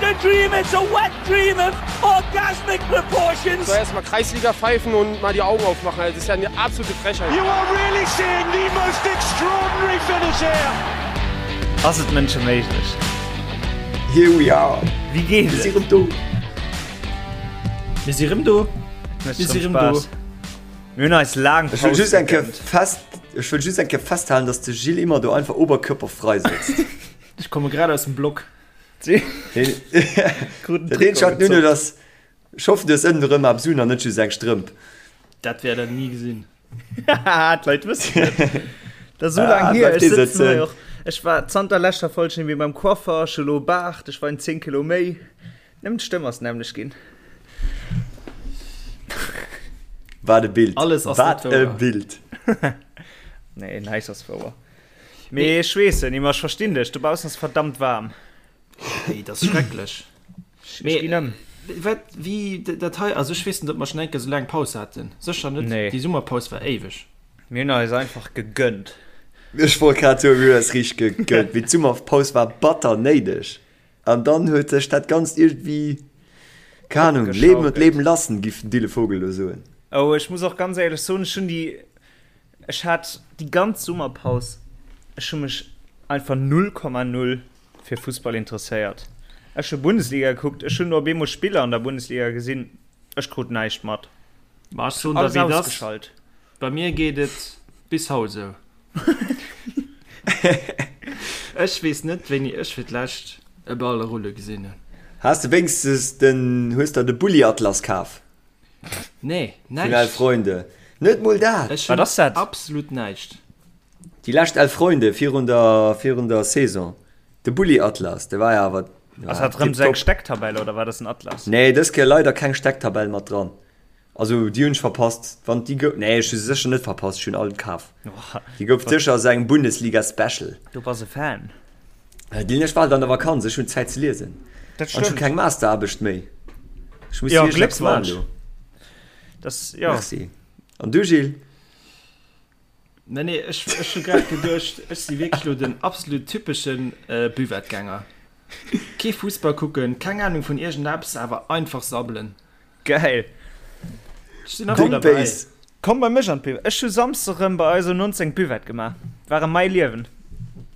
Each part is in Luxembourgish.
a dream, it's a wet dream of orgasmic proportions. So erstmal Kreisliga pfeifen und mal die Augen aufmachen. Also, das ist ja eine absolute Frechheit. You are really seeing the most extraordinary finish here. Ass et mënscheméiglech? Here we are. Wéi geet Mir et? si rëm do. Mir si rëm do. Mécht Mir si rëm rëm do. Spaass. Mir hunn eis laang Ech wëll Paus just eng Kéier gegönnt. fest, ech wëll just eng Kéier festhalen, dass de Gilles immer do einfach oberkörperfrei sëtzt. Ech komme grad aus dem Block. Kruten Dat eenzegt Trikot wat nun gezoppt. ass, ech hoffen du hues ënnen erëm eppes un an net just eng Strëmp. Dat wäert der ni gesinn. Haha, d'Leit wëssen et. Dat ass esou Ah, laang hier. bleift Ech dee sëtzen hei sëtzen. och. Ech war zanter leschter Folg net méi beim Coiffer, ech hu lo Baart, ech weien 10 Kilo méi. Nëmmen d'Stëmm ass nämmlecht ginn. Wat e Bild. Alles ass Wat net e wouer. Bild. Nee, näischt ass wouer. Mee ech weess et nimmer, ech verstinn dech, dobaussen ass verdammt waarm. Ey, dat ass schrecklech. Ech Mee ginn ëm. wat, wéi dat hei, also ech weess net, ob mer schonn eng Kéier esou laang Paus haten. Sécher net. Nee. Déi Summerpaus war éiweg. Mir hunn eis einfach gegönnt. Ech wollt grad soen, mir hunn eis richteg gegönnt. Mee d'Summerpaus war batter néideg. An dann huet sech dat Ganzt iergendwéi, keng Ahnung, leben und Opgeschaukelt. leben lassen, giff den Dille Vogel elo soen. Oh, ech muss och ganz éierlech soen, ech hunn déi, ech hat déi ganz Summerpaus, ech hu mech einfach 0,0 fir Fussball interesséiert. Ech hu Bundesliga gekuckt, ech hunn op eemol Spiller an der Bundesliga gesinn, ech krut näischt mat. Ma ech soen der Alles wéi et ass, ausgeschalt. bei mir geet et bis haut esou. Ech weess net wéini ech fir d'lescht e Ball rulle gesinn hunn. Has de wéinstens den, hues der de Bulli-Atlas kaf? Nee, Vun Elf näischt. Freunde? Net mol dat? Ech Wat hunn ass dat? absolut näischt. Déi lescht Elf Freunde virun der, virun der Saison. De Bulli-Atlas, de war jo awer, Ass war dat rëm sou eng tipptopp. Stecktabell oder wat ass en Atlas? Nee, dës Kéier leider keng Stecktabell mat dran. Also déi hunn ech verpasst. Wann déi gouf, nee ech hu se sécher net verpasst, ech hunn all kaf. Déi gouf sécher aus engem Bundesliga Special. Du bass e Fan. Dylan, ech war halt an der Vakanz, ech hunn Zäit ze liesen. Dat An ech hu stëmmt. keng Masteraarbecht méi. Ech muss Jo, wierklech eppes maachen Gléckwonsch. elo. Das, jo. Merci. An du Gilles? Nee, nee, ech, ech hu grad geduecht, ech si wierklech lo den absolut typeschen äh, Buvettegänger. Kee Fussball kucken, keng Ahnung vun iergendeppes, awer einfach sabbelen. Geil. Ech sinn nach ëmmer derbäi. Komm bei mech an d'Buvette. Ech hu Samsdeg rëm bei eis um 19 d'Buvette gemaach. War erëm mäi Liewen.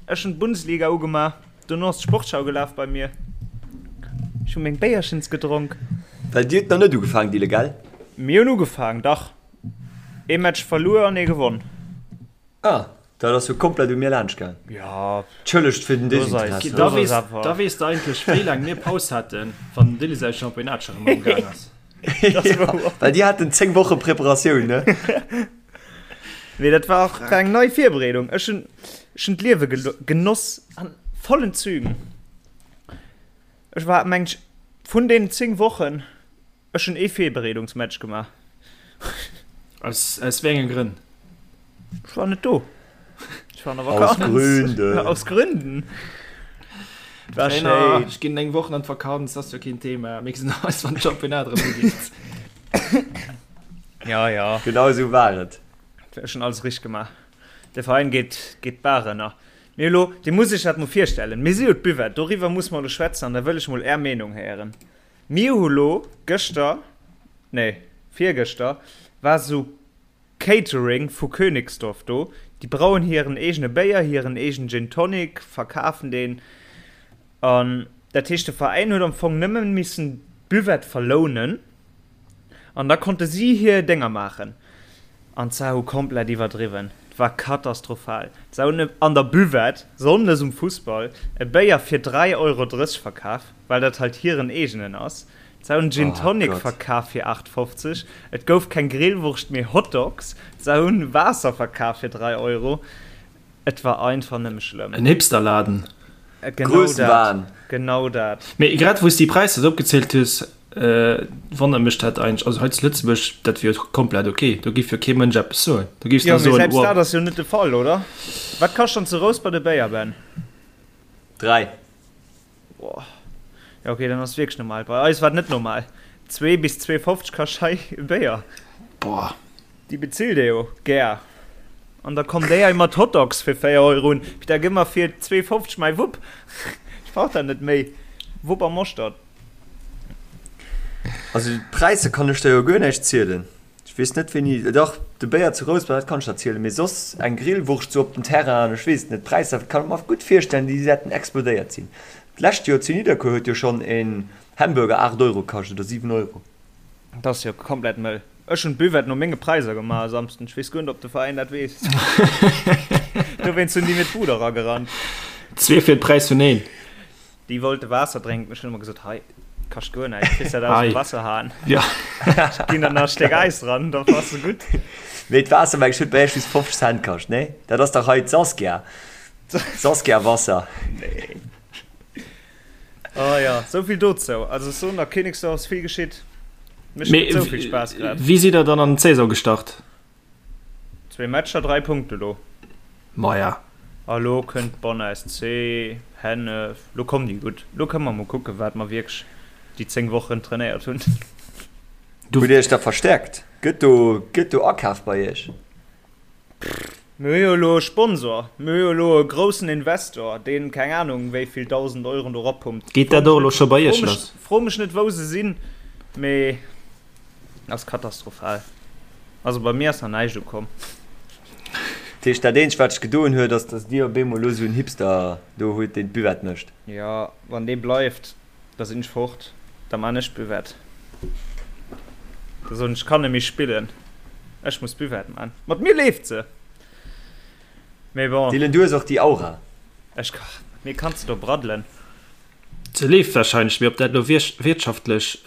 Ech hunn d'Bundesliga ugemaach, dono ass d'Sportschau gelaf bei mir. Ech hu meng Béierchens gedronk. Well dir hutt nach net ugefaangen, Dille, gell? Mir hunn ugefaangen, dach. Ee Match verluer an ee gewonn. Ah, dat ass jo komplett u mir laanscht gaang. Ja, Tschëllegt fir den Looss eis. Desinteresse. Da Looss eis weess, awer. da weess de eigentlech, wéi laang mir Paus haten, wann den Dilly säi Championnat scho rëm am Gaang ass. Dat ass wouer. Well déi haten 10 Woche Preparatioun, ne? Mee dat war och eng nei Virbereedung. Ech hunn, ech hunn d'Liewe genoss an vollen Zügen. Ech war, meng ech, vun deenen 10 Wochen, Ech hunn ee Virbereedungsmatch gemaach. Aus, aus wéi enge Grënn? Ech war net do. Ech war an der Aus Vakanz. Gründen. Aus Gründen. War Trainer, schéin. ech ginn eng Woch an d'Vakanz, ass jo keen Thema. Mir gesinn eis, wann d'Championnat erëm ugeet. Ja, ja. Genau esou war et. Ech hunn alles richteg gemaach. De Veräin geet, geet d'Baach ënner. Mee elo, Dir musst Iech dat mol virstellen, Mir si jo d'Buvette, doriwwer muss mer elo schwätzen an da wëll ech mol Är Meenung héieren. Mir hu lo gëschter, nee virgëschter, war sou Catering vu Königsdorf do. Déi brauen hiren eegene Béier, hiren eegenen Gin Tonic, verkafen deen. An dat heescht de Veräin huet am Fong nëmmen missen d'Buvette verlounen an da konnte si hir Dénger maachen. An se hu komplett iwwerdriwwen. Et war katastrophal. Se hunn an der Buvette, sonndes um Fussball, e Béier fir 3,30 Euro verkaf. Well dat halt hiren eegenen ass. Se hunn Gin Tonic verkaf fir 8,50, et gouf keng Grillwurscht mee Hotdogs, se hunn Waasser verkaf fir 3 Euro. Et war einfach nëmme schlëmm. En Hipsterladen. Genau dat, genau dat. Mee grad wou s déi Präisser esou opgezielt hues, wonnert mech dat eigentlech. Also hei zu Lëtzebuerg, dat wier jo komplett ok, do géif jo kee Mënsch eppes soen. Do géifs Jo, der mee soen, selbst oh. dat ass jo net de Fall, oder? Wat kascht dann zu Rouspert e Béier, Ben? 3. Boah. Ja okay, dann ass wierklech normal. Bei eis war et net normal. 2 bis 2,50 kascht hei e Béier. Boah. Déi bezilt ee jo gär. An da kommen déi hei mat Hotdogs fir 4 Euro un. Peter, gëmm mer fir 2,50 mäi Wupp. Ech brauch dat net méi. Wupp a Moschtert. Also d'Präisser kann ech der jo guer näischt zielen. Ech weess net wéini, dach de Béier zu Rouspert, dat kann ech der zielen, mee soss eng Grillwurscht sou op den Terrain, ech weess et net. D'Präisser kann ech mer gutt virstellen, déi wäerten explodéiert sinn. D'lescht Joer zu Nidderkuer huet jo schonn en Hamburger 8 Euro kascht oder 7 Euro. Dat ass jo komplett mëll. Ech hunn d'Buvette no menge Präisser gemaach e Samsden. Ech weess guer net, ob de Veräin dat weess. Dowéinst hunn déi mir d'Bud eragerannt. Zwee fir de Präis vun een. Déi wollte Waasser drénken. Ech hunn ëmmer gesot, hei, kascht guer näischt, kriss dat aus dem Wasserhahn. Ja. Ech ginn der nach e Stéck Äis dran, da bass de gutt. Mee d'Waasser, meng ech, huet bei iech just 50 Cent kascht, nee? Dat ass dach hei d'Saskia. Saskia-Wasser. Nee. Oh ja, sou vill dozou. Also ech soen der, Königsdorf ass vill geschitt. Mécht Mee net sou vill Spaass grad. wéi sidd der dann an d'Saison gestart? Zwee Matcher, 3 Punkte lo. Maja. A lo kënnt Bonn SC, Hennef, lo kommen déi gutt. Lo kënne mer mol kucken, wat mer wierklech déi 10 Wochen trainéiert hunn. Hutt Dir Iech da verstäerkt? Gëtt do, gëtt do akaf bei Iech? Mir hu jo elo e Sponsor, mir hu jo elo e groussen Investor, deen keng Anung wéi vill 1.000 Euron do erapumpt. Geet dat och elo scho bei Iech lass? Fro mech net wou se sinn, mee ass katastrophal. Also bei mir ass nach näischt ukomm. Dat heescht, dat eenzegt wat sech gedoen huet, ass dass Dir op eemol elo esou en Hipster do hutt, deen d'Buvette mécht. Jo, wann dee bleift, da sinn ech fort, da man ech d'Buvette. Da soen ech, ech kann net méi spillen, ech muss d'Buvette man. Mat mir leeft se, mee bon. Dylan, du hues och déi Aura. Ech, mat mir kanns de do braddelen. Se leeft wahrscheinlech, mee ob dat elo wirtschaftlech.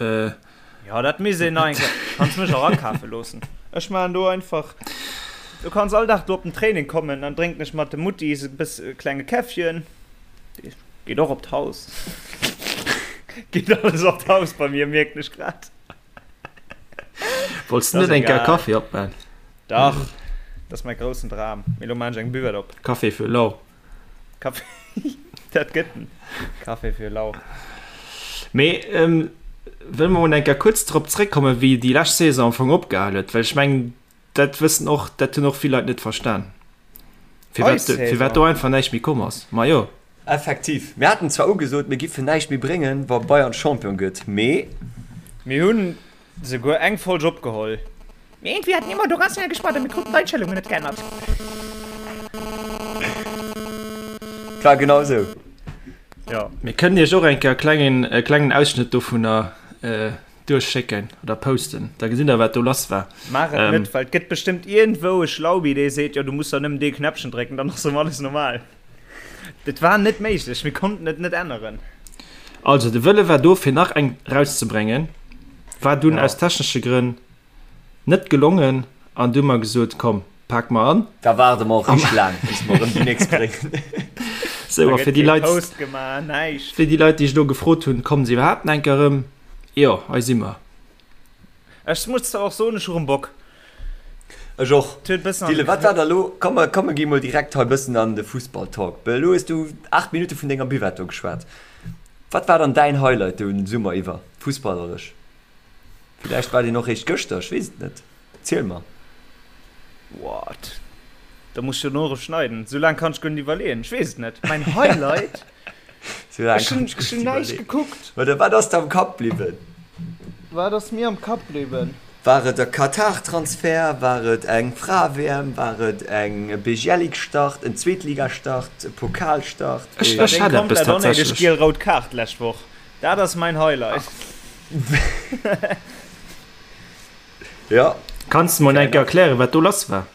Jo, dat misst een nach eng Kéier. Kanns mech och akafe loossen. Ech maachen do einfach, du kanns all Dag do op den Training kommen, dann drénken ech mat de Muttis e bëss e klenge Käffchen. Geet och op d'Haus. Geet alles op d'Haus bei mir, mierken ech grad. Wollts du net eng Kéier Kaffi opman? Dach, dat ass mäi groussen Dram. Mee lo maan ech eng Buvette op. Kaffi fir lau. Kaffi, dat gëtt en Café fir lau. Mee wëlle mer mol eng Kéier kuerz drop zréckkommen, wéi déi lescht Saison am Fong opgehal huet, well ech mengen, dat wëssen och, dat hunn och vill Leit net verstan, firwat, firwat do einfach näischt méi komm ass. Majo. Effektiv, mir haten zwar ugesot, mir giffen näischt méi bréngen, wa Bayern Champion gëtt, mee. Mir hunn Souguer eng Folg opgeholl. Mee iergendwéi hat Nemo do ganz schnell gespaart a mir kruten d'Einstellungen net geännert. Et war genau esou. Jo. Mir kënnen iech och eng Kéier e klengen, e klengen Ausschnëtt dovunner duerchschécken oder posten, da gesitt der wat do lass war. Maach et net, well et gëtt bestëmmt iergendwou e Schlaubi, dee seet, jo du muss der nëmmen dee Knäppchen drécken, dann ass erëm alles normal. Et war net méiglech, mir konnten et net änneren. Also de Wëlle war do fir nach eng rauszebréngen, war dunn aus technesche Grënn net gelongen an du hu mer gesot, komm pak mer an. Da waarde mer och richteg laang bis mer erëm déi nächst bréngen. Sou, a fir déi Leit, fir déi Leit déi sech elo gefrot hunn, kommen se iwwerhaapt nach eng Kéier erëm? Jo, hei si mer. Ech muss zwar och soen, ech hu rem Bock. Ech och. Dylan, wat war da lo? Komm, mer, komm, mer gi mol direkt hei bëssen an de Fussball-Talk. Well elo hues du 8 Minutte vun denger Buvette do geschwat. Wat war dann däin Highlight de Summer iwwer, fussballerech? Villäicht war deen och réischt gëschter, ech weess et net. Ziel mer. What? Da muss ech jo no erëm schneiden. Sou laang kann ech guer net iwwerleeën. Ech weess et net. Mäin Highlight? Ech hunn ech hunn näischt gekuckt. Oder wat ass der am Kapp bliwwen? Wat ass mir am Kapp bliwwen? War et e Katar-Transfer? War et eng Frae-WM? War et eng e Bejelic-Start, en Zweetligastart, e Pokalstart? Ech ech Deng hat eppes komplett onnéideg tatsächlech. giel-rout Kaart d'lescht Woch. Dat ass mäin Highlight. Jo. Kanns de mol eng Kéier erklären, wat do lass war?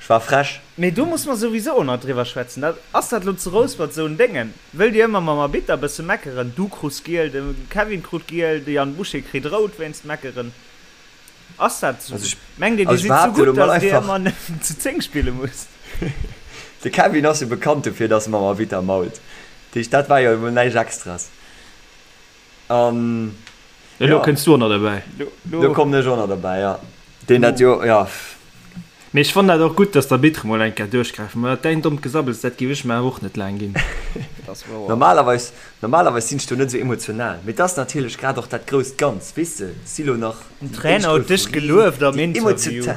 Ech war frech. Mee do muss mer souwisou och nach driwwer schwätzen. Dat, ass dat lo zu Rouspert esou en Déngen? Wëllt Dir ëmmer mam Arbitter e bësse meckeren? Du krus giel, de Kevin krut giel, de Yann Boucher kritt rout wéinst Meckeren. Ass dat esou? Also ech, Mengt Dir, Dir also ech sidd esou behaapte lo gutt, mol datt Dir einfach. ëmmer nëmmen zu 10 spille musst? De Kevin ass jo bekannt dofir, datt e mam Arbitter mault. Dat heescht, dat war jo emol näischt Extras. An Elo jo. kënns du och nach derbäi. Lo kommen ech och nach derbäi, jo. Deen dat jo, jo. Mee ech fannen dat och gutt, dass d'Arbitre mol eng Kéier duerchgräifen, well dat däin dommt Gesabbels, dat géif ech mer awer och net laang ginn. Dat ass wouer. Normalerweis, normalerweis sinn ech do net esou emotional, mee et ass natierlech grad och dat grousst Ganz, weess de, et si lo nach Den déi éischt Trainer huet dech Euphorie, gelueft am déi Interview. Emotiota.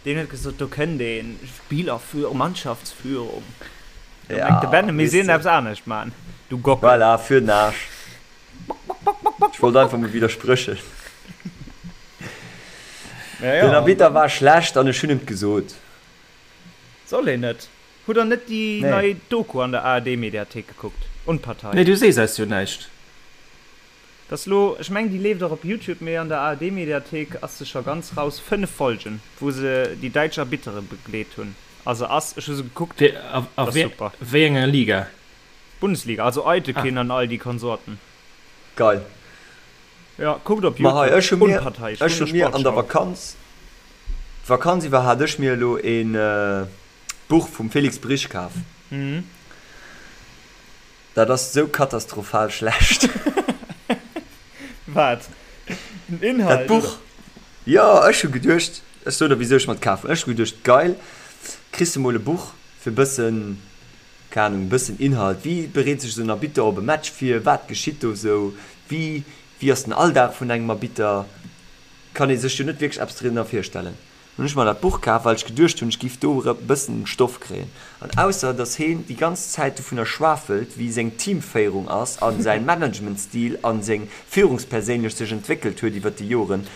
Deen huet gesot, do kënnt een, Spielerführung, Mannschaftsführung. Do mengt de Ja, Ben, e misst weess de. iergendeppes anescht man, du Gockel. Voilà, fir den Aarsch. Bock, bock, bock, bock. Ech wollt einfach mol widdersprëchen. Den Arbitter war schlecht an ech hunn em 't gesot. Soll een net. Hutt der net déi nei Doku an der ARD-Mediathéik gekuckt? Unpartei. Nee, du sees eis jo näischt. Dat ass lo, ech mengen déi leeft och op Youtube, mee an der ARD-Mediathéik ass se scho ganz raus. 5 Folgen, wou se déi däitsch Arbittere begleet hunn. A se ass, ech hu se gekuckt, ass super. A wéi enger Liga? Bundesliga, also Aytekin an all déi Konsorten. Geil. Jo, kuckt op Ma hei, ech hu mir, ech hu mir an der Vakanz, d'Vakanz iwwer hat ech mir elo een Buch vum Felix Brych kaf. Dat ass esou katastrophal schlecht. Wat? Den Inhalt? Dat Buch? Jo, ech hu geduecht, ech soen der wisou ech mer et kaf hunn. Ech hu geduecht, geil, kriss de mol e Buch fir e bëssen, keng Ahnung, e bëssen Inhalt, wéi bereet sech esou en Arbitter op e Match vir, wat geschitt do esou, wéi, wéi ass den Alldag vun engem Arbitter, kann ee sech jo net wierklech eppes drinner virstellen. Hunn ech mer dat Buch kaf, well ech geduecht hunn, ech giff do e bëssen Stoff kréien. An ausser dass heen déi ganz Zäit dovunner schwafelt, wéi seng Teamféierung ass a säin Managementstil a seng Führungsperséinlech sech entwéckelt huet iwwert déi Joren,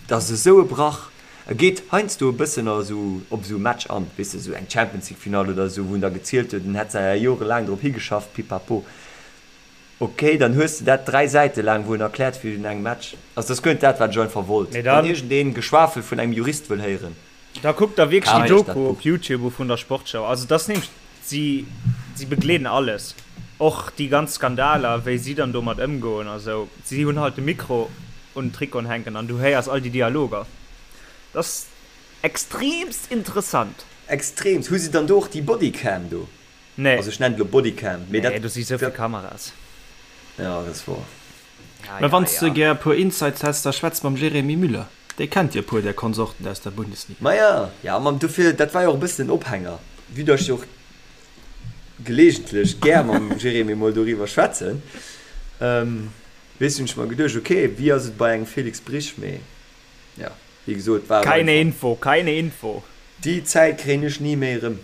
dat ass esou e Brach. E geet heiansdo e bëssen a sou op esou e Match an, weess de, esou eng Champions League Finall oder esou, wou en da gezielt huet, en hätt säi jorelaang drop higeschafft, pipapo. Ok, dann hues de dat 3 Säite laang, wou en erkläert wéi un engem Match. Also dat ass guer net dat wat ech einfach wollt. Mee dann. Wann iergendeen Geschwafel vun engem Jurist wëll héieren. Da kuckt der wierklech déi Kaaft iech dat Doku Buch. op Youtube u vun der Sportschau. Also dat ass nämlech, si si begleeden alles, och déi ganz Skandaler, wéi si dann domat ëmgoen a sou. Si hunn halt de Mikro un den Trikoten hänken an du héiers all déi Dialoger. Dat ass extremst interessant. Extremst. Hu si dann do och déi Bodycam do? Nee. Also ech nennen et elo Bodycam, mee dat. Nee, do si souvill Kameras. Ja, dat ass wor. Ja, Mä ja, wann s de ja. gär e puer Insights häss, da schwätz mam Jérémy Müller. Dee kennt jo e puer där Konsorten aus der Bundesliga. Maja, ja, ma dofir, dat war jo och e bëssen den Ophänger, vue dass ech jo och gelegentlech gär mam Jérémy mol doriwwer schwätzen, weess, hunn ech mer geduecht, ok, wéi ass et bei engem Felix Brych, mee ja, wéi gesot, war et Keine einfach. Info, keine Info. Déi Zäit kréien ech ni méi erëm.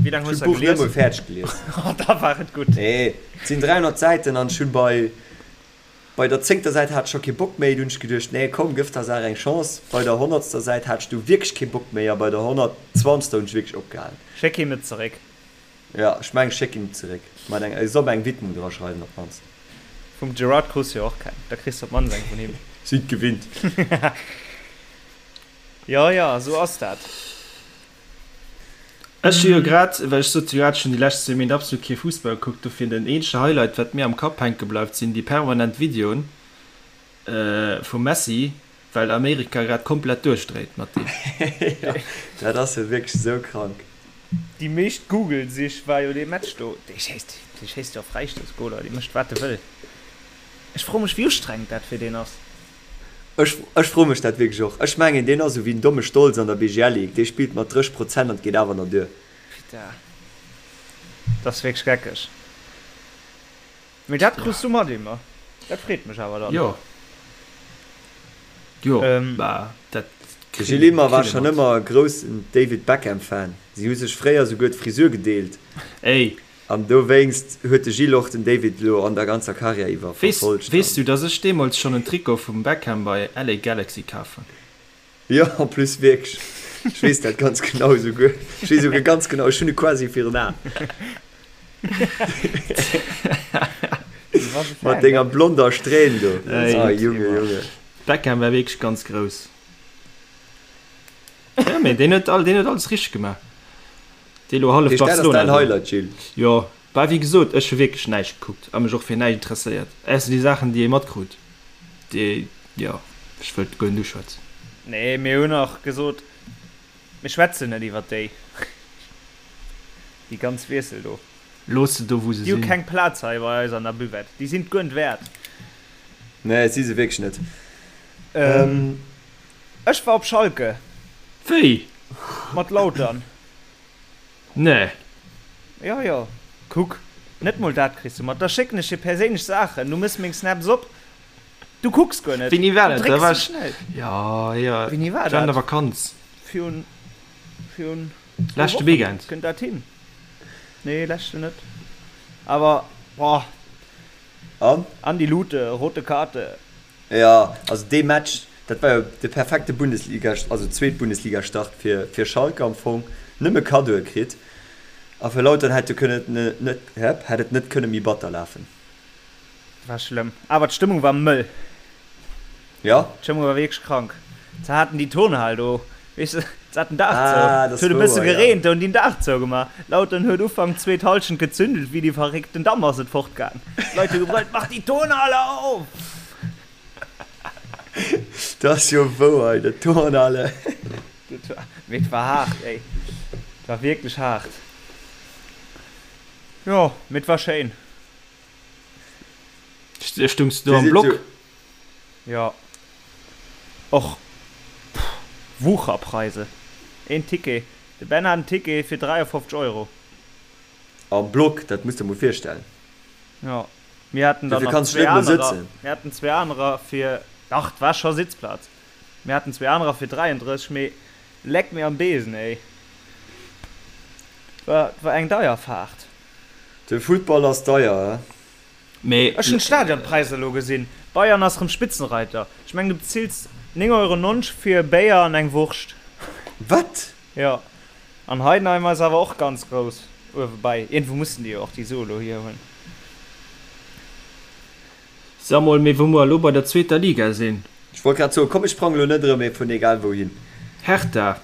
Wéi laang Ech hues hunn de d'Buch net gelies? mol fäerdeg gelies. Oh, da war et gutt. Nee, et sinn 300 Säiten an ech hunn bei bei der zéngter Säit hat ech scho kee Bock méi. Du hunn ech geduecht, nee komm, gëff der Saach eng Chance. Bei der honnertster Säit hat ech du wierklech kee Bock méi a bei der honnertzwanzegster hunn ech wierklech opgehalen. Schéck him et zeréck. Jo, ech mengen ech schéck him et zeréck. Mat eng, e soll mer eng Widmung dra schreiwen op d'mannst. Vum Gerard krus jo och keng, da kriss de op d'mannst eng vun him. Sinn gewinnt. Jo, jo, esou ass dat. Ech hu jo grad, well ech sot jo grad, ech hunn déi lescht zwee Méint absolut kee Fussball gekuckt, dofir den eenzege Highlight wat mir am Kapp hänke bleift sinn déi permanent Videoen vum Messi, well Amerika grad komplett duerchdréit mat deem. Jo, dat ass jo wierklech esou krank. Déi meescht Google-Sich war jo dee Match do. Dee schéisst, dee schéisst jo Fräistoussgoler, dee mécht wat e wëll. Ech froe mech wéi ustrengend dat fir deen ass. Ech ech froe mech dat wierklech och. Ech mengen deen ass esou wéi den domme Stolz an der BGL Ligue, dee spillt mat 30 Prozent an et geet awer nach duer. Putain, dat ass wierklech geckeg. Mee dat krus du mat, Ymer. Dat freet mech awer dann. Jo, jo, bah, dat De Gilles Ymer war schonn ëmmer e groussen David Beckham Fan. Si hu sech fréier souguer d'Frisur gedeelt. Ey, An dowéinst huet de Gilles och den David elo an der ganzer Karriär iwwer verfollegt. Weess du, dass ech deemools schonn en Trikot vum Beckham bei LA Galaxy kaf hunn? Jo, en plus wierklech. Ech weess dat ganz genau esouguer. Ech weess esouguer ganz genau, ech hunn e quasi virun Aen. Mat denger blonder Strähn do. Ah, Junge, Junge. Beckham war wierklech ganz grouss. Jo, mee deen huet alles richteg gemaach. Dee lo hallef Heescht dat ass Barcelona däin do. Highlight, Gilles? Jo, bah wéi gesot, ech hu wierklech näischt gekuckt a mech och fir näischt interesséiert, ausser déi Saachen déi ee matkrut, déi, jo, ech wëllt guer net uschwätzen. Nee, mir hunn och gesot, mir schwätzen net iwwer déi, déi ganz Wiessel do. Looss se do wou se Déi hu sinn. keng Plaz hei bei eis an der Buvette, déi sinn et guer net wäert. Nee, si se wierklech net. Ech war op Schalke. Wéi? Mat Lautern. Nee. Jo, jo. Kuck, net mol dat kriss du mat. Da schécken ech dir perséinlech Saachen. Du mëss meng Snaps op. Du kucks guer net. Wéini war Du dat? Da drécks war sou ech. schnell. Jo, jo. Wéini war Ech war an dat? der Vakanz. Virun, virun zwou Leschte Wochen. Weekend. Kënnt dat hin? Nee, leschten net. Awer, boah. An? Andi Lute, rote Karte. Jo, also dee Match, dat war jo de perfekte Bundesliga, also Zweetbundesliga-Start fir, fir Schalke am Fong. Nëmme Kaddoe kritt. A fir Lautern hätt jo kënne net, hätt et net kënne méi batter lafen. War schlëmm. Awer d'Stëmmung war mëll. Jo. D'Stëmmung war wierklech krank. Se haten déi Turnhal do, weess de, se haten den Daach zou. Ah, dat ass Et huet e bësse wouer, ja. gereent, do hunn déi den Daach zougemaach. Lautern huet Ufank zweet Hallschent gezündelt wéi déi Verréckten, dann ass et fortgaang. D'Leit hu gebrëllt, Mach déi Turnhal op! Dat ass jo wouer, ey, dat Turnhale. Dat war, mee et war haart, ey. Et war wierklech haart. Jo, mee et war schéin. Stungs du do am Block? Jo. Och Wucherpreise. Een Ticket, de Ben hat en Ticket fir 53 Euro. Am Block, dat muss der mol virstellen. Jo, mir haten dann nach zwee anerer, mir haten zwee anerer fir, dach, et war scho Sitzplaz, mir haten zwee anerer fir 33, mee leck mir am Besen, ey. War, war eng deier Fahrt. De Football ass deier, he? Mee. Ech hunn d'Stadionpräisser elo gesinn. Bayern ass rëm Spitzenreiter. Ech mengen du bezills 9,90 Euro fir e Béier an eng Wurscht. Wat? Jo. An Heidenheim ass awer och ganz grouss uewe bei. Iergendwou mussen déi jo och déi Sue elo hier hunn. Sa mol, mee wou mer elo bei der zweeter Liga sinn. Ech wollt grad soen, komm ech sprange lo net erëm ee vun egal wouhin. Hertha.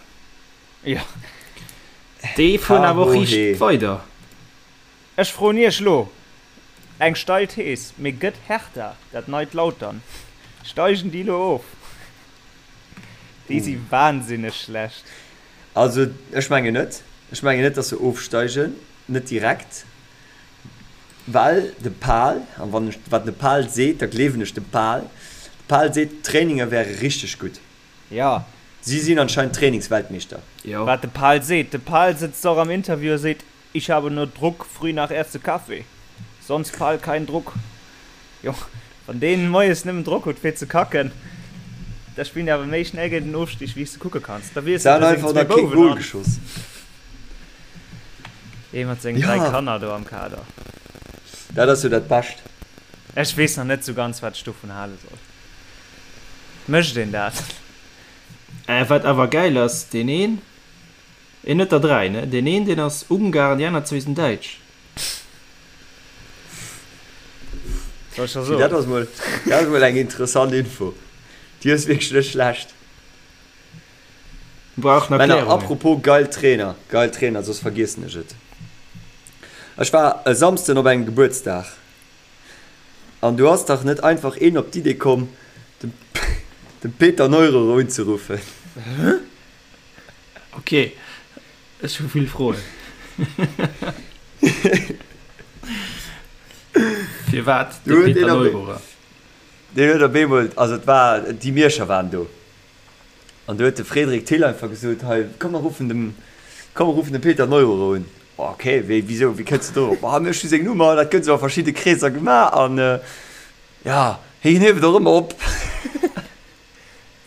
Jo. Déi fueren awer och riicht weider. Ech froen iech lo eng steil Thees, mee gëtt Hertha dat neit Lautern? Steigen déi lo of? Déi si wahnsinneg schlecht. Also ech mengen net. Ech mengen net, datt se ofsteigen, net direkt, well de Pal, an wann ech wat de Pal seet, da gleewen ech dem Pal, de Pal seet, d'Traininger wäre richteg gutt. Jo. Si sinn anscheinend Trainingsweltmeeschter. Jo. Wat de Pal seet, de Pal sëtzt och am Interview a seet, Ich habe nur Druck früh nach erste Kaffee, sonst Pal kein Druck. Jo, wann deen moies nëmmen Drock huet fir ze kacken, da spillen déi awer méi schnell géint den Ofstig wéi s de kucke kanns. Da wiesselt Se e han seng einfach zwee nach kee Bouwen Goal an. geschoss. Ee mat sengen 3 Ja. Kanner do am Kader. Dat ass jo dat Bescht. Ech weess nach net sou ganz wat ech dovun hale soll. Mécht een dat? Äh, wat awer gäil ass, deen een, Een huet der 3, ne? Deen een, deen ass Ungar an déi aner zwee sinn Däitsch. Soll ech der soen? Dat ass mol, dat ass mol eng interessant Info. Déi ass wierklech net schlecht. Brauchen Männer, Erklärungen. apropos geil Trainer, geil Trainer, soss vergiessen ech et. Ech war e Samsden op engem Gebuertsdag an do ass dach net einfach een op d'Idee komm, dem, dem Peter Neururer unzeruffen. Ok, ech hu vill Froen. Firwat de Peter Neururer? Deen huet op eemol, also et war, déi Mierscher waren do an do huet de Frédéric Thill einfach gesot, hei komm mer ruffen dem, komm mer ruffen de Peter Neururer un. Ok, wéi, wisou, wéi kënns de dorop? Ah, ech hu seng Nummer, dat gëtt esou a verschidde Kreesser gemaach an jo, hien hieft och ëmmer op.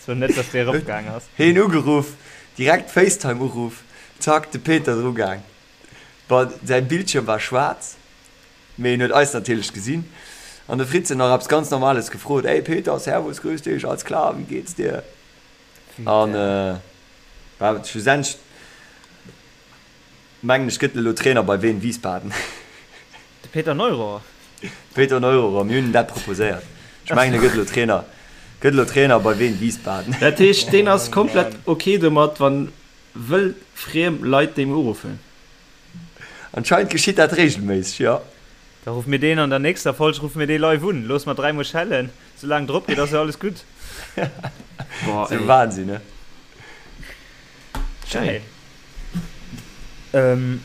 So net dass dee eropgaang ass. Heen ugeruff, direkt Facetime Uruff, zack de Peter dru gaang. Bon, säin Bildschirm war schwaarz, mee en huet eis natierlech gesinn. An de Fritz huet nach eppes ganz Normales gefrot, Ey Peter, servus, grüß dich, alles klar, wie geht's dir? An bah, schlussendlech Mengen ech gëtt elo Trainer bei Wien Wiesbaden. De Peter Neururer. Peter Neururer, mir hunn en dat proposéiert. Ech mengen e gëtt elo Trainer, gëtt elo Trainer bei Wien Wiesbaden. Dat heescht deen ass komplett ok domat wann wëll friem Leit deem uruffen? Anscheinend geschitt dat regelméisseg, jo. Da ruffe mir deen an der nächster Folg ruffe mir dee live un. Loosse mer dräimol schellen, soulaang drop geet ass jo alles gutt. Boah Sou ey. Wahnsinn, ne? Schéin. Ähm,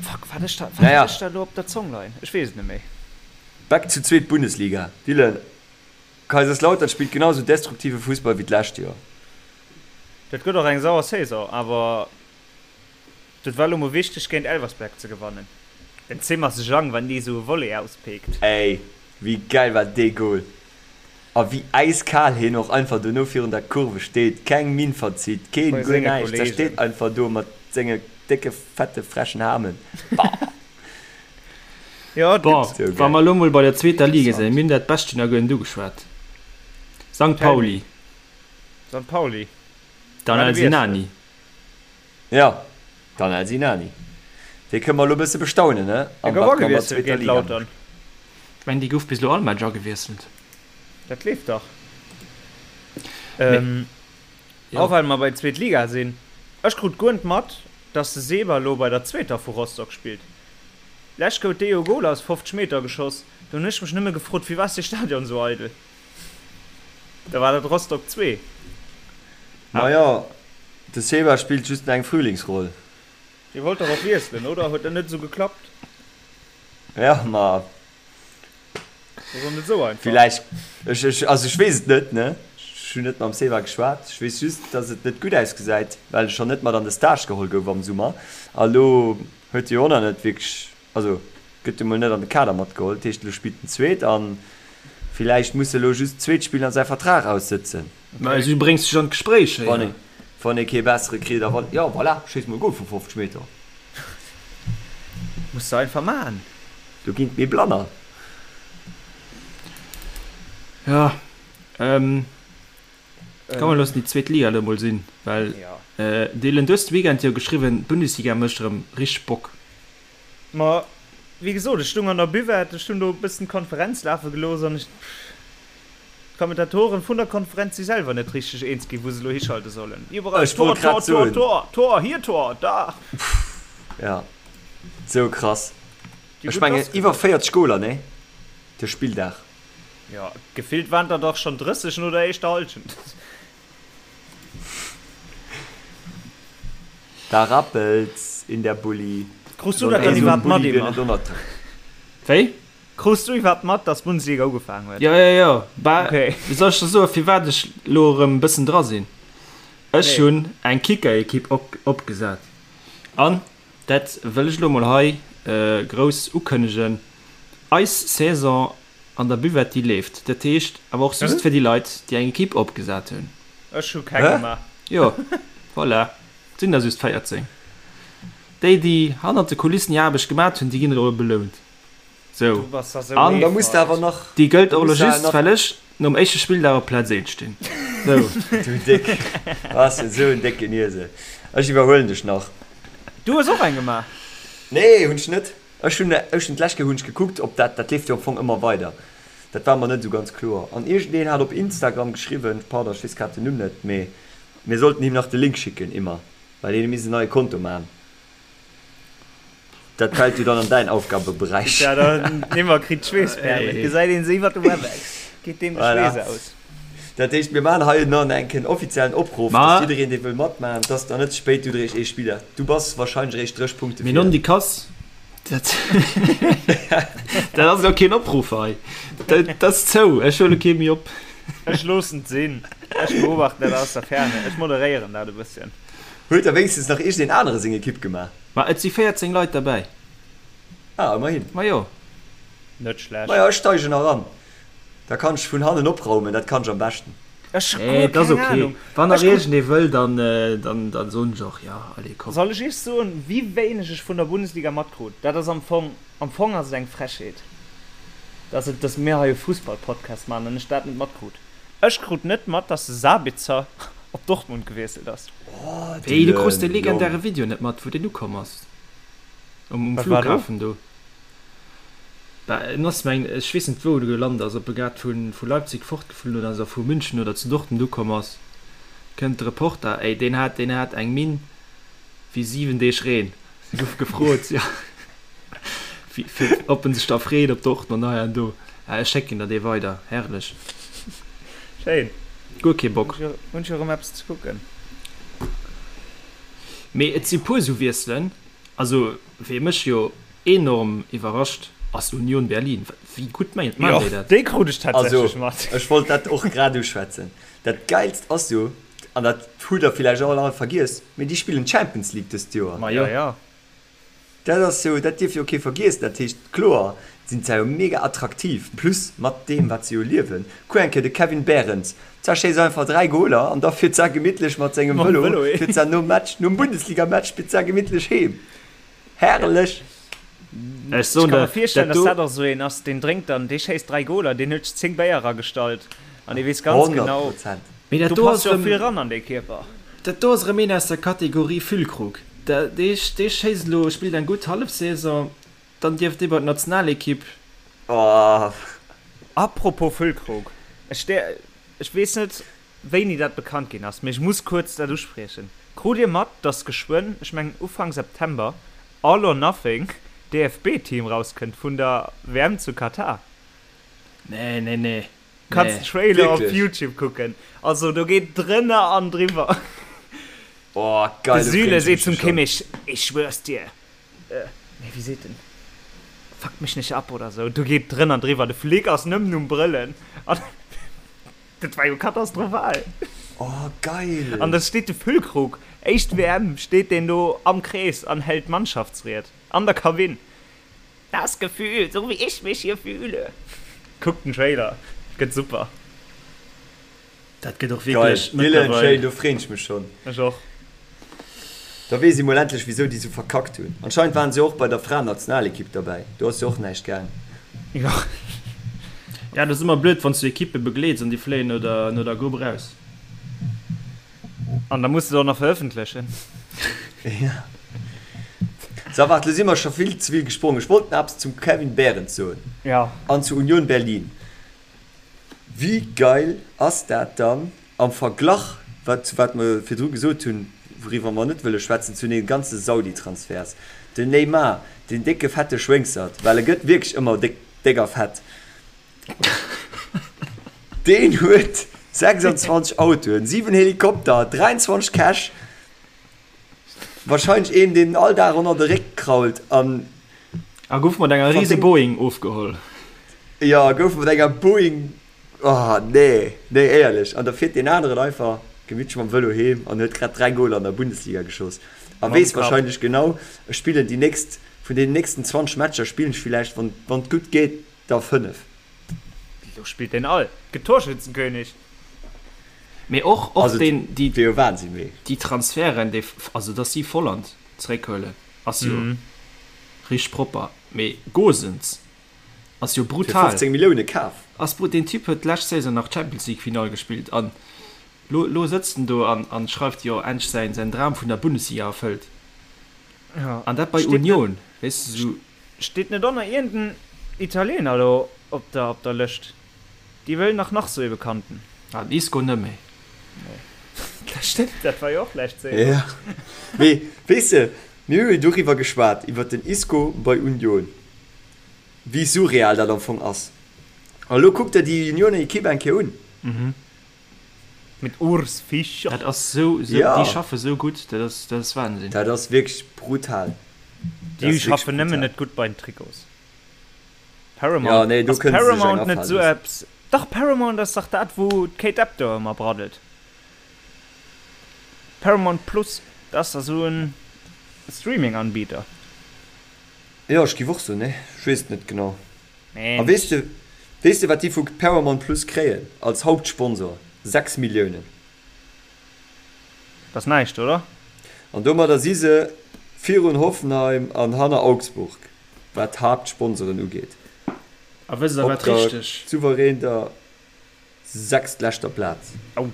fuck, wat ech da, wat Naja. hat ech da elo op der Zong leien? Ech weess et net méi. Back zu zweet Bundesliga. Dylan, Kaiserslautern spillt genau sou destruktive Fussball wéi d'lescht Joer. Dat gëtt och eng sauer Saison, awer dat war elo mol wichteg géint Elversberg ze gewannen. Den Zimmer Zhang, wann dee sou e Volley auspeekt. Ey, wéi geil war dee Goal! A wéi äiskal hien och einfach dono virun der Kurve steet, keng Minn verzitt, keen Bei guer senge näischt, da Kollegen. steet einfach do mat senge décke fette frechen Hamen. Bah! Jo, et Bon, gëtt. wa mer elo mol bei der zweeter Liga sinn, mir hunn dat Bescht jo nach guer net ugeschwat. Sankt Tell me. Pauli. Sankt Pauli. Danel War de Wiessel. Sinani. Jo, Danel Sinani. Dee kënne mer elo e bësse bestaunen, ne? Dee An gouf wat mer an der agewiesselt zweeter géint Liga Lautern. Ech mengen, dee gouf bis elo all Match agewiesselt. Dat leeft dach. Mee, Ähm, jo. och well mer bei zweet Liga sinn, ech krut guer net mat, dass de Seba elo bei der zweeter vu Rostock spillt. Lescht gout dee jo e Gol aus 50 Meter geschoss, do hunn ech mech nëmme gefrot, firwat ass dee Stadion esou eidel? Da war dat Rostock 2. Majo, de Seba spillt just eng Frühlingsroll. Dee wollt dach och wiesselen, oder? Huet dat net esou geklappt? Ja, ma Dat ass och net esou einfach. villäicht, ech, ech, also ech weess et net, ne? Ech hunn net mam Seba geschwat. Ech weess just, dass et net gutt ausgesäit, well e schonn net mat an de Stage geholl gouf am Summer. A lo huet e jo och nach net wierklech Also gëtt emol net an de Kader matgeholl, dat heescht elo spillt en zweet an villäicht muss e lo just zweet spillen a säi Vertrag aussëtzen. Mä du bréngs dech an d'Gespréich héier. Wann ee wann ee kee bessere kritt a wann, jo voilà, schéiss mol e Gol vu 50 Meter. Muss de einfach man. Do ginn et méi Blanner. Jo, komm mer loossen déi zweet Liga elo mol sinn, well Dylan, du hues de Weekend jo geschriwwen, d'Bundesliga mécht erëm richteg Bock. Ma wéi gesot, ech stung an der Buvette, ech hunn do e bëssen d'Konferenz lafe gelooss an ech, d'Kommentatoren vun der Konferenz si selwer net richteg eens ginn, wou se elo hischalte sollen. Iwwerall Ech Tor, wollt Tor, grad Tor, soen. Tor, Tor, hier Tor, da. Ja, sou krass. Déi Ech gutt mengen lass iwwer geluecht. 40 Goler, nee? De Spilldag. Jo, gefillt waren der dach schonn 30 no der éischter Hallschent. Da rappelt's in der Bulli. Krus du dat dann iwwerhaapt mat, Emma? Wéi? Krus du iwwerhaapt mat, dass d'Bundesliga ugefaangen huet? Jo, jo, jo. Bah, Okay. wéi soll ech der soen, firwat ech elo erëm e bëssen dra sinn? Ech Nee. hunn eng Kicker-Ekipp op, opgesat. An dat wëll ech elo mol hei grouss ukënnegen, Eis Saison An der Buvette déi leeft. Dat heescht awer och just fir déi Leit déi eng Equipe opgesat hunn. Ech hu keng gemaach. Jo, voilà, et sinn der just 14. Déi déi hannert de Kulissen hir Aarbecht gemat hunn, déi ginn elo belount. Sou, an Da muss de awer nach, déi gëllt da och elo muss de awer just nach. well ech nom éischte Spilldag op Plaz 1 stinn. Sou. Du Déck, bass esou en décken Iesel. Ech iwwerhuelen dech nach. Du hues och eng gemaach? Nee, hunn ech net. Ech hunn, ech hunn d'lescht Kéier hunn ech gekuckt, ob dat, dat leeft jo am Fong ëmmer weider, dat war mer net esou ganz kloer. An iergendeen hat op Instagram geschriwwen, pardon, ech weess grad den Numm net, mee mir sollten him nach de Link schicken, immer, well hien misst en neie Konto maachen. Dat fält jo dann an däin Aufgabeberäich. Ja, den Immer kritt d'Schweessperlen, et gesäit een se iwwer de Webex, geet deem de Voilà. Schweess aus. Dat heescht, mir maachen hei nach eng Kéier en offiziellen Opruff, Ma. dass jiddereen, dee wëll matmaachen, dass der net ze spéit, du eréischt ee Spiller, du bass wahrscheinlech eréischt 30 Punkte Mee vir. non déi Kass, dat dat ass elo keen Opruff hei. Dat ass zou, ech huele kee méi op. Ech loossen et sinn, ech beobachten dat aus der Ferne, ech moderéieren dat e bësschen. Huet da wéinstens nach iergendeen anere seng Ekipp gemaach? Ma et si 14 Leit derbäi. Ah, ëmmerhin. Ma jo. Net schlecht. Majo, ech steigen eran. Da kann ech vun hannen opraumen, dat kann ech am beschten. Ech hu Nee, guer et ass keng ok. Ahnung. Wann nach Ech krut. iergendee wëll, dann, dann, dann soen ech och, jo, allez, komm. Soll ech iech soen, wéi wéineg ech vun der Bundesliga matkrut? Dat ass am Fong, am Fong ass et eng Frechheet, dass et, dass mir hei e Fussballpodcast maachen an ech dat net matkrut. Ech krut net mat, dass de Sabitzer op Dortmund gewiesselt ass. Oh, Wéi, du krus de Dylan, Jong. legendäre Video net mat, wou deen ukomm ass um, um Wat war do? Flughafen do? Bah, en ass mengen ech weess net wou e gelant ass, ob e grad vu vu Leipzig fortgeflunn oder ass a vu München oder zu Dortmund ukomm ass, kënnt de Reporter, ey deen hat deen hat eng Minn wéi 7 Deeg Reen. Si gouf gefrot jo wéi fir ob en sech da freet op Dortmund hei an do. Ah ech schécken der dee weider, herrlech. Schéin. Guer kee Bock. Hunn ech jo erëm eppes ze kucken. Mee et si puer sou Wiesselen, also wee mech jo Enorm iwwerrascht ass Union Berlin. Wéi gutt maachen déi dat? Déi krut ech Also, tatsächlech mat. ech wollt dat och grad uschwätzen. Dat Geilst ass jo, an dat hutt der villäicht och all vergiess, mee déi spillen d'Champions League dëst Joer. Ma jo. Ja, ja. Dat ass jo, dat dierf jo kee vergiessen. Dat heescht, kloer sinn se jo mega attraktiv, plus mat deem, wat se jo liewen. Kuck eng Kéier de Kevin Behrens, zerschéisst einfach 3 Goler an da fiert se gemittlech mat sengem Mam Vëlo, Vëlo heem. fiert se nom Match, nom Bundesliga-Match, fiert se gemittlech heem. Herrlech! Ech soen Ech ka der, mer virstellen, dat dass do. dat och esou een ass, deen drénkt dann, dee schéisst 3 Goler, deen huet 10 Béier eragestallt an dee weess ganz 100 genau, Prozent. Mee dat do do passt ass jo och vill erëm, ran an dee Kierper. dat do ass erëm een aus der Kategorie Füllkrug. Da, dee, dee schéisst elo, spillt eng gutt Hallefsaison, dann dierf dee bei d'Nationalekipp. Oh. Apropos Füllkrug, ech, ech weess net, wéini dat bekannt ginn ass, mee ech muss kuerz dat uspriechen. Krut Dir mat, dass geschwënn, ech mengen Ufank September, All or Nothing DFB-Team rauskënnt vun der WM zu Katar? Nee, nee, nee, Kanns nee. den Trailer op Wierklech? Youtube kucken, also do geet drënner an driwwer. Oh, De geil, do Süle freeën ech seet mech zum jo schonn. Kimmich, Ich schwör's dir, nee wéi seet en, Fuck mich nicht ab oder sou, do geet drënner an driwwer, de Flick ass nëmmen um Brëllen an dat war jo katastrophal. Oh, geil! An da steet de Füllkrug, éischt WM, steet deen do am Krees an hält d'Mannschaftsried an der Kabinn. Das Gefühl, so wie ich mich hier fühle. Kuckt den Trailer, gëtt super. Dat gëtt och Geil, wierklech Dylan, mëttlerweil. schéin, do freen ech mech schon. Ech och. Da weess ee mol endlech wisou déi sou verkackt hunn. Anscheinend waren se och bei der Fraen-Nationalekipp derbäi, do ass jo och näischt gaang. Jo. Ja, dat ass ëmmer blöd, wann s du Ekippe begleets an déi fléien no der, no der Grupp eraus. An da muss de et och nach verëffentlechen. Ja. So, waart, lo si mer scho vill ze vill gesprongen. Ech wollt nach eppes zum Kevin Behrens soen. Ja. An zu Union Berlin. Wéi geil ass dat dann am Verglach, wat zu wat mer virdru gesot hunn, wouriwwer mer net wëlle schwätzen, zu den ganze Saudi-Transferts. Den Neymar, deen décke fette Schwéngsert, well e gëtt wierklech ëmmer déck, déck a fett, deen huet 26 Autoen, 7 Helikopter, 23 Käch, wahrscheinlech een, deen all Dag ënner de Réck krault an. A gouf mat enger riese Boeing ofgeholl. Jo, gouf mat enger Boeing, oh nee, nee éierlech. An da fiert deen aneren einfach gemittlech mam Vëlo heem an huet grad 3 Goler an der Bundesliga geschoss a weess wahrscheinlech genau, ech spillen déi nächst, vun deenen nächsten 20 Matcher spillen ech villäicht, wann wann et gutt geet, der 5. Lo spillt deen all, gëtt Torschützenkönig. Mee och, och Also deen, déi, wier jo Wahnsinn, mee. déi Transferten, déi, also dass si Volland zeréckhuelen, ass jo richteg propper. Mee Gosens ass jo Fir brutal. 15 Millioune kaf. Ass brut, deen Typ huet d'lescht Saison nach d'Champions League Finall gespillt an lo, lo sëtzt en do an, an schreift jo endlech säin, säin Dram vun der Bundesliga erfëllt. Ja. An dat bei Steet net, Union, weess de, sou. steet net och nach iergend en Italiener do op der, op der Lëscht? Déi wëllen nach nach sou ee Bekannten. Ah, den Isco net méi. Nee. Dat stëmmt, dat war jo och lescht Saison. Ja. Mee weess de, mir hu jo doriwwer geschwat, iwwer den Isco bei Union, wéi surreal dat am Fong ass. A lo kuck der déi Unioner Ekipp eng Kéier un. Mit Urs Fischer. Dat ass sou, sou, Ja. déi schaffe sou gutt, dat ass, dat ass Wahnsinn. Dat ass wierklech brutal. Dat Déi ass wierklech schaffen nëmmen brutal. net gutt bei den Trikots. Ja, Paramount, nee, do ass kënne se sech eng Paramount net afalen sou loossen. eppes? Dach, Paramount ass dach dat, wou d'Kate Abdo ëmmer braddelt. Paramount Plus, dat ass dach sou en Streaming-Anbieter. Jo, ech giff och soen, nee, ech weess et net genau. A Mensch. weess de, weess de wat déi vu Paramount Plus kréien als Hauptsponsor? 6 Milliounen. Dat ass näischt, oder? An domadder si se virun Hoffenheim an hanner Augsburg. Wat d'Haaptsponsoren ugeet, A wësst der op wat der richteg. souverän der sechstleschter Plaz. Au.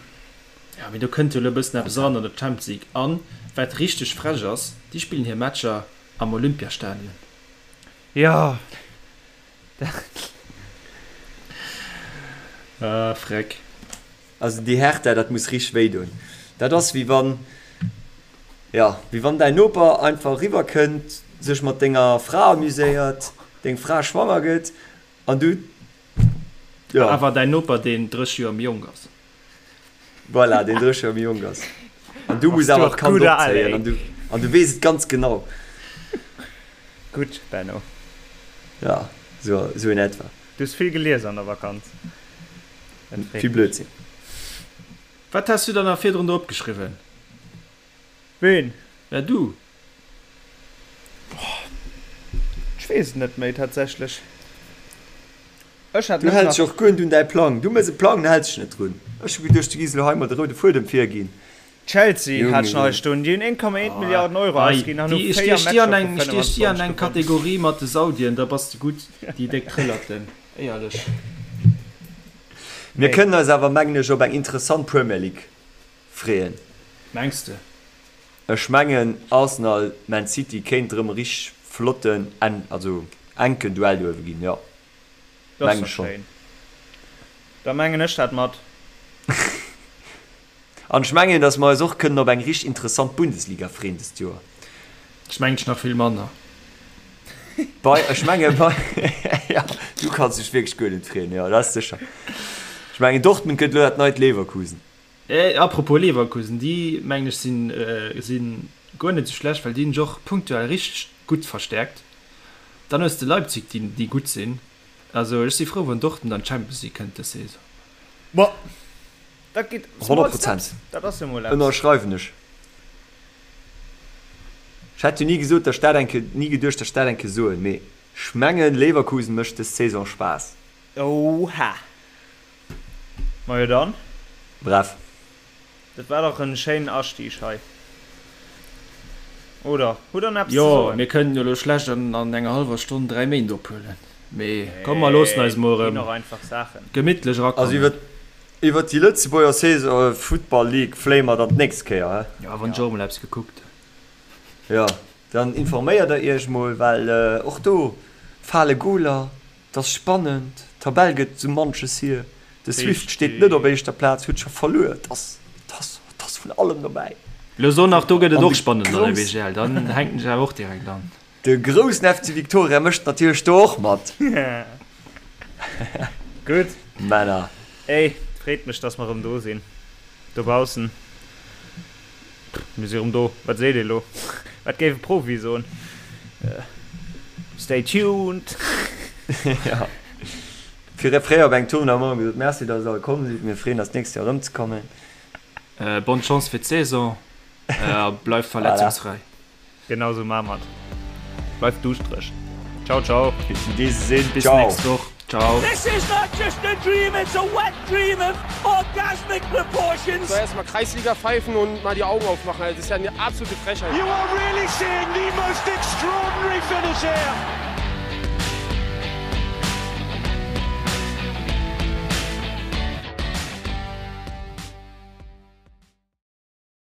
Ja, mee do kënnt jo elo e bëssen eppes eran an der Champions League. An wat richteg frech ass, déi spillen hir Matcher am Olympiastadion. Jo, dat. Ah, freck. Also déi Hertha, dat muss richteg wéi doen. Dat ass wéi wann, jo, wéi wann däin Noper einfach eriwwer kënnt, sech mat denger Fra amuséiert, deng Fra schwanger gëtt an du, jo. Awer däin Noper, deen 30 Joer méi jonk ass. Voilà, deen 30 Joer méi jonk ass. An du muss Bass du awer och d'Kand gutt al, opzéien ey. an du, an du weess et ganz genau. Gutt, Benno. Jo, sou, sou in etwa. Du hues vill gelies an der Vakanz. Dat freet Vill mech. Blödsinn. Wat has du dann nach virdrun do opgeschriwwen? Ween? Ja, du. Ech weess et net méi tatsächlech. Ech hat Du net häls dech nach. och guer net un däi Plang. Du méchs e Plang, an häls dech net drun. Ech hu geduecht, du giss elo hei mol de roude Fuedem virginn. Chelsea hat ech nach hei stoen, déi hunn 1,1 Milliarden Euro ausginn an hu 4 Matcher vu 25 gewonnen. Stiech déi an eng Kategorie mat de Saudien, da bass de gutt, déi déck Trëllerten, éierlech. Mir kënnen eis awer, mengen ech, op eng interessant Premier League freeën. Mengs de? Ech mengen Arsenal, Man City kéint erëm e richteg flotten, also enken Duell do uewe ginn, jo. Dat ass doch schéin. Da mengen ech dat mat. An ech mengen, datt mer eis och kënnen op eng richteg interessant Bundesliga freeën dëst Joer. Ech mengen ech nach vill manner. Bei, ech menge bei, jo, du kanns dech wierklech guer net freeën, jo, dat ass sécher. Ech mengen Dortmund gëtt elo dat neit Leverkusen. Apropos Leverkusen, déi mengen ech sinn si guer net esou schlecht, well déi hunn sech och punktuell richteg gutt verstäerkt. Dann hues de Leipzig, déi déi gutt sinn. Also ech si frou wann Dortmund an d'Champions League kënnt dës Saison. Boah, dat geet small steps, dat ass jo mol eppes. Ënnerschreiwen ech. Ech hätt jo ni gesot, datt ech dat eng Kéier, ni geduecht, datt ech dat eng Kéier soen, mee ech mengen Leverkusen mécht dës Saison Spaass. Oha! Majo dann. Bref. Dat war dach en schéinen Astieg hei. Oder hutt der nach eppes ze soen? Jo, mir kënnen jo elo schlecht an enger hallwer Stonn 3 Méint ophuelen. Mee komm mer loossen eis mol erëm gemittlech erakommen. Also iwwert déi Lëtzebuerger Saison, Futtball League fléie mer dann d'nächst Kéier, he? Jo, wann ech och emol eppes gekuckt hunn. Jo, dann informéiert der iech mol, well och do fale Goler. 't ass spannend, d'Tabell gëtt sou manches hier, de Swift steet net op éischter Plaz, huet scho verluer, 't ass, 't ass, 't ass vun allem dobäi. Lo so nach, do gëtt et och spannend an der BGL, dann hänken ech awer och direkt an. De groussen FC Victoria mécht natierlech do och mat. Gutt. Männer. Ey, freet mech, dass mer erëm do sinn dobaussen. Mir si rëm do. Wat seet ee lo? Wat géif e Profi soen? Stay tuned! Jo. Fir fréier op engem Tournoi hu mer gesot, Merci, datt der all komm sidd. Mir freeën eis d'nächst Joer erëmzekommen. Bonne Chance fir d'Saison a bleift verletzungsfräi. Genau sou maa mer et. Bleift duuschtereg. Ciao ciao. Bis in diesem Sinn. Bis nächst Woch. Ciao. This is not just a dream, it's a wet dream of orgasmic proportions. So erstmal Kreisliga pfeifen und mal die Augen aufmachen, das ist ja eine absolute Frechheit. You are really seeing the most extraordinary finish here.